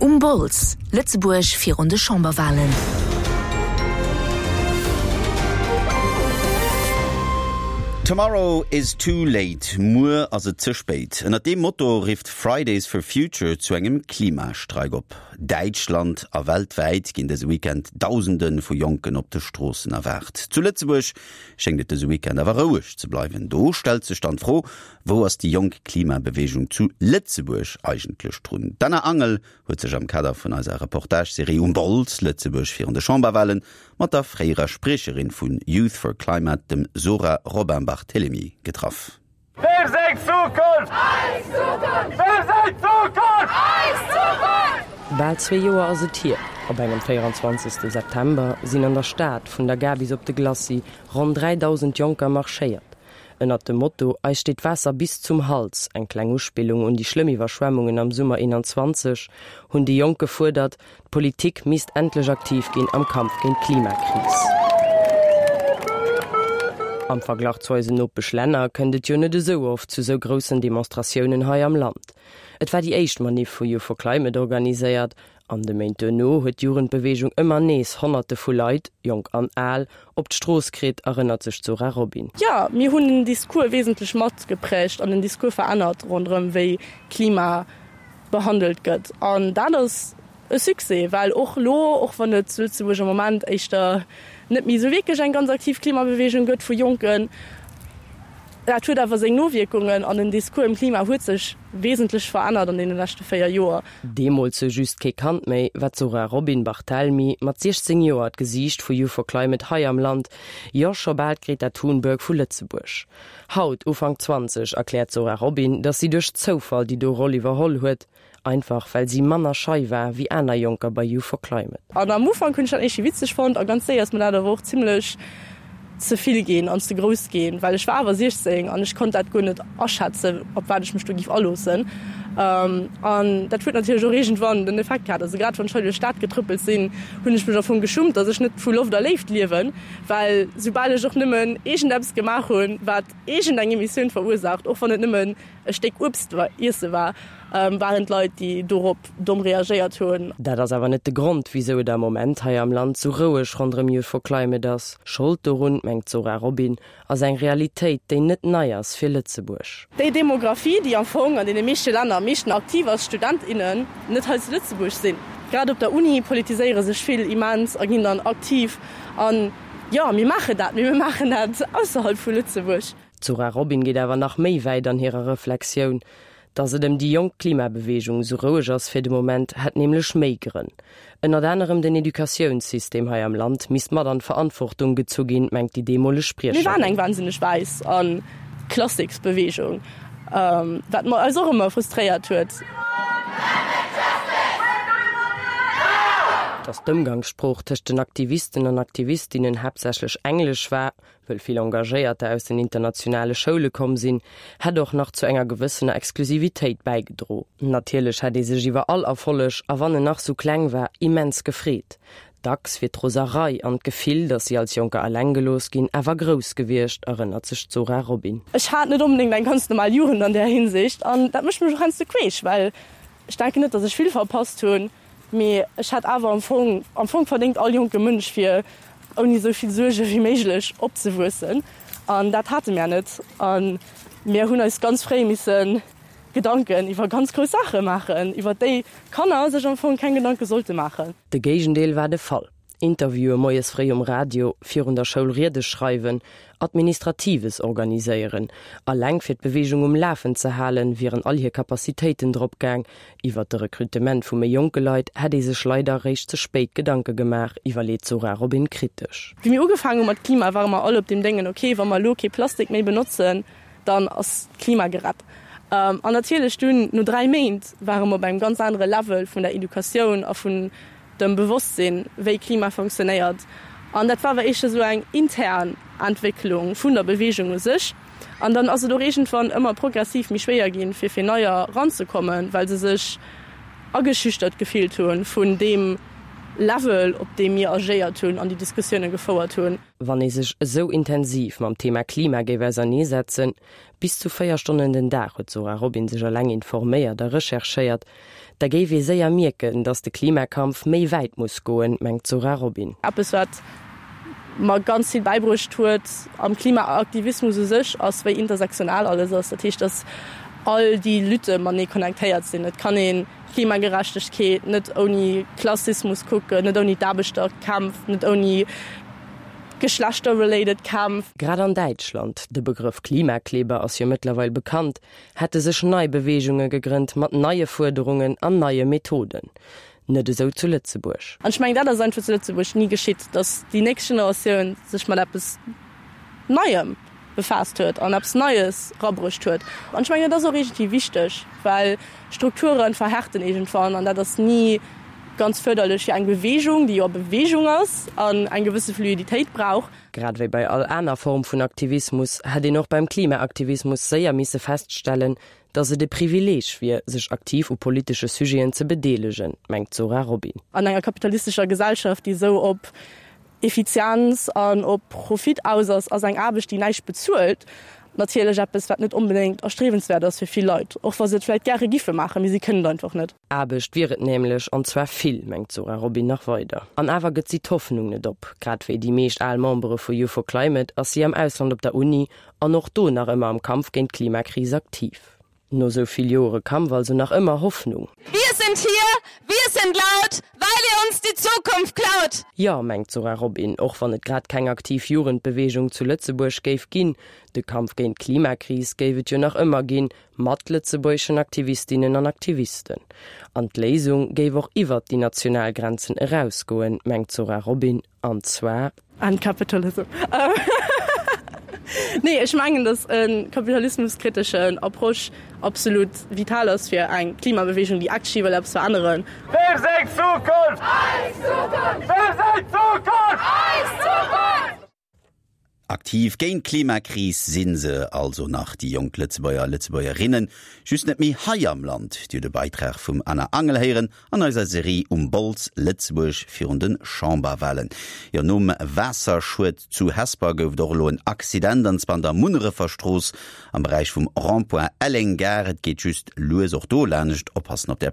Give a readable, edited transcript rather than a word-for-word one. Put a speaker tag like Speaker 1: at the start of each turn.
Speaker 1: Um Bols, Lëtzebuerg virun de Chamberwalen.
Speaker 2: Tomorrow is too late, Muer ass et ze spéit. Ënnert deem Motto rifft Fridays for Future zu engem Klimastreik op. Däitschland a weltwäit ginn dëse Weekend Dausende vu Jonken op de Stroossen erwaart. Zu Lëtzebuerg schéngt et dëse Weekend awer roueg ze bleiwen. Do stellt sech dann d'Fro, Wou ass déi jonk Klimabeweegung zu Lëtzebuerg eigentlech drun? D'Anna Angel huet sech am Kader vun eiser Reportage-Serie Um Bols, Lëtzebuerg virun de Chamberwahlen mat der fréierer Spriecherin vun Youth for Climate, dem Zora Robin-Barthelemy, getraff.
Speaker 3: Wem seng Zukunft? Eis Zukunft! Wem seng Zukunft? Eis Zukunft!
Speaker 4: Bal zwee Joer ass et hier, op engem 24. September sinn an der Stad, vun der Gare bis op de Glacis, ronn 3.000 Jonker marschéiert. Ënnert dem Motto Eis steet d'Waasser bis zum Hals, eng kleng Uspillung un déi schlëmm Iwwerschwemmungen am Summer 21, hunn déi Jonk gefuerdert, d'Politik misst endlech aktiv ginn am Kampf géint d'Klimakris. Am Verglach zu eisen Nopeschlänner kënnt et jo net esou oft zu sou groussen Demonstratiounen hei am Land. Et war déi éischt Maniff vu Youth for Climate organiséiert An de Méint duerno huet d'Jugendbeweegung ëmmer nees Honnerte vu Leit, jonk an al, op d'Strooss kritt, erënnert sech d'Zora Robin.
Speaker 5: Jo, mir hunn den Discours wesentlech matgeprägt an den Discours verännert ronderëm wéi Klima behandelt gëtt. An dat ass e Succès, well och elo, och wann et zu Lëtzebuerg am Moment éischter net méi esou wierklech eng ganz aktiv Klimabeweegung gëtt vu Jonken, dat huet awer seng Nowierkungen an den Discours ëm Klima huet sech wesentlech verännert an deene leschte 4 Joer.
Speaker 4: Deemools sou just kee Kand méi, war d'Zora Robin Barthelmy mat 16 Joer d'Gesiicht vu Youth for Climate hei am Land, jo scho bal d'Greta Thunberg vu Lëtzebuerg. Haut, Ufank 20, erkläert d'Zora Robin, datt si duerch Zoufall déi do Roll iwwerholl huet, einfach well si manner schei war wéi aner Jonker bei Youth for Climate.
Speaker 5: An am Ufank hunn ech dat éischi witzeg fonnt a ganz séier ass mir dat awer och zimmlech ze vill ginn an ze grouss ginn, well ech war awer 16 an ech konnt dat guer net aschätzen, op wat ech mech do giff aloossen. An dat huet natierlech och iergendwann den Effekt gehat. Also grad wann ech hei duerch d'Stad getrëppelt sinn, hunn ech mech am Fong geschummt, datt ech net vu Loft a Léift liewen, well soubal ech och nëmmen iergendeppes gemaach hunn, wat iergendeng Emissioun verursaacht, och wann et nëmmen e Stéck Uebst iesse war, waren d'Leit, déi dorop domm reagéiert hunn.
Speaker 4: Dat ass awer net de Grond, wisou et am Moment hei am Land sou roueg ronderëm Youth for Climate ass. Schold dorun, mengt d'Zora Robin, ass eng Realitéit, déi net nei ass fir Lëtzebuerg.
Speaker 5: Déi Demographie, déi am Fong an deene meeschte Länner am meeschten aktiv ass, Student, innen, net hei zu Lëtzebuerg sinn. Grad op der Uni politiséiere sech vill immens a ginn dann aktiv. An jo, mir maachen dat, mee mir maachen dat ausserhalb vu Lëtzebuerg.
Speaker 4: D'Zora Robin geet awer nach méi wäit an hirer Reflexioun. Datt et ëm déi jonk Klimabeweegung esou roueg ass fir de Moment, hätt nämlech méi Grënn. Ënnert anerem den Educatiounssystem hei am Land misst mat an d'Verantwortung gezu ginn, mengt déi deemoleg
Speaker 5: Mir waren
Speaker 4: Spriecherin.
Speaker 5: eng wahnsinneg wäiss a Klassiksbeweegung, wat mer eis och ëmmer frustréiert huet.
Speaker 4: Datt d'Ëmgangssprooch tëscht den Aktivisten an Aktivistinnen haaptsächlech Englesch war, Wëll vill Engagéierter aus den internationale Schoule komm sinn, hätt och nach zu enger gewëssener Exklusivitéit bäigedro. Natierlech hätt ee sech iwwer all Erfolleg, a wann en nach sou kleng war, immens gefreet. Dacks wier d'Roserei an d'Gefill, datt si als Jonker eleng gelooss ginn, awer grouss gewiescht, erënnert sech d'Zora Robin.
Speaker 5: Ech hat net onbedéngt eng ganz normal Jugend an där Hinsicht an dat mécht mech och heiansdo queesch, well ech denken net, datt ech vill verpasst hunn. Mee ech hätt awer am Fong, am Fong verdéngt all jonke Mënsch fir ouni esou vill Suerge wéi méiglech opzewuessen. An dat hate mär net. A mir hunn eis ganz fréi misse Gedanken iwwer ganz grouss Saache maachen, iwwer déi Kanner sech am Fong keng Gedanke sollte maachen.
Speaker 4: De Géigendeel war de Fall. Interviewe moies fréi um Radio, virun der Schoul Riede schreiwen, Administratives organiséieren. Alleng fir d'Beweegung um Lafen ze halen, wieren all hir Capacitéiten drop gaang. Iwwert de Rekrutement vu méi jonke Leit hätt ee sech leider eréischt ze spéit Gedanke gemaach, iwwerleet d'Zora Robin kritesch.
Speaker 5: Wéi mir ugefaangen hu mat Klima, ware mer all op deem Déngen, ok, wa mer elo kee Plastik méi benotzen, dann ass d'Klima gerett. An natierlech dunn, no 3 Méint, ware mer op engem ganz anere Level vun der Educatioun a vun dem Bewosstsinn, wéi Klima funktionéiert. An dat war awer éischter esou eng intern Entwécklung vun der Beweegung u sech. An dann ass et och iergendwann ëmmer progressiv méi schwéier ginn, fir fir Neier eranzekommen, well se sech ageschüchtert gefillt hu vun deem. Level, op deem mir agéiert hunn an déi Diskussioune gefouert hunn.
Speaker 4: Wann ee sech esou intensiv mam Thema Klima géif auserneesetzen, bis zu 4 Stonnen den Dag huet d'Zora Robin sech eleng informéiert a recherchéiert, da géif ee séier mierken, datt de Klimakampf méi wäit muss goen, mengt d'Zora Robin.
Speaker 5: Eppes wat mer ganz vill bäibruecht huet am Klimaaktivismus u sech, ass wéi intersektional alles ass. Dat heescht, datt all déi Lutte matenee connectéiert sinn. Et kann ee Klimagerechtegkeet net ouni Klassismus kucken, net ouni d'Aarbechterkämpf, net ouni geschlechter-related Kämpf.
Speaker 4: Grad an Däitschland, de Begrëff Klimakleber ass jo mëttlerweil bekannt, hätte sech nei Beweegunge gegrënnt mat neie Fuerderungen an neie Methoden. Net esou zu Lëtzebuerg.
Speaker 5: An ech mengen, dat ass einfach zu Lëtzebuerg ni geschitt, datt déi nächst Generatioun sech mat eppes Neiem befaasst huet an eppes Neies rabruecht huet. An ech mengen, dat ass och iergendwéi wichteg, well Strukture verhärten iergendwann an dat ass ni ganz fërderlech fir eng Beweegung, déi jo a Beweegung ass an eng gewësse Fluiditéit brauch.
Speaker 4: Grad wéi bei all aner Form vun Aktivismus hätt een och beim Klimaaktivismus séier misse feststellen, datt et e Privileeg wier, sech aktiv u politesche Sujeten ze bedeelegen, mengt d'Zora Robin.
Speaker 5: An enger kapitalistescher Gesellschaft, déi esou op Effizienz an op Profit aus ass, ass eng Aarbecht, déi näischt bezuelt, natierlech eppes, wat net onbedéngt erstriewenswäert ass fir vill Leit, och wa se et vläicht gäre giffe maachen, mee si kënnen et einfach net.
Speaker 4: Aarbecht wier et nämlech, an zwar vill, mengt d'Zora Robin nach weider. An awer gëtt si d'Hoffnung net op. Grad wéi déi meescht al Membere vu Youth for Climate ass si am Ausland op der Uni an och do nach ëmmer am Kampf géint d'Klimakris aktiv. No sou vill Joere Kampf also nach ëmmer Hoffnung.
Speaker 6: Wir sind hier, wir sind laut, weil ihr uns die Zukunft klaut!
Speaker 4: Jo, mengt d'Zora Robin, och wann et grad keng aktiv Jugendbeweegung zu Lëtzebuerg géif ginn, de Kampf géint d'Klimakris géif et jo nach ëmmer ginn, mat lëtzebuergeschen Aktivistinnen an Aktivisten. An d'Léisung géif och iwwert déi national Grenzen erausgoen, mengt d'Zora Robin, an zwar.
Speaker 5: End capitalism. Nee, ech mengen, datt e kapitalismuskriteschen Approche absolut vital ass fir eng Klimabewegung, déi actually wëll eppes veränneren.
Speaker 3: Wem seng Zukunft? Eis Zukunft! Wem seng Zukunft? Eis Zukunft!
Speaker 2: Aktiv géint d'Klimakris si se also nach, déi jonk Lëtzebuerger a Lëtzebuergerinnen, just net méi hei am Land. Dir hutt e Beitrag vum Anna Angel héieren an eiser Serie Um Bols, Lëtzebuerg virun de Chamberwahlen. Jo, nom Waasserschued zu Hesper gouf et och elo en Accident, an zwar an der Munnerefer Strooss am Beräich vum Rond-point Elleng-Gare. Et geet just lues och do laanscht, oppassen op där.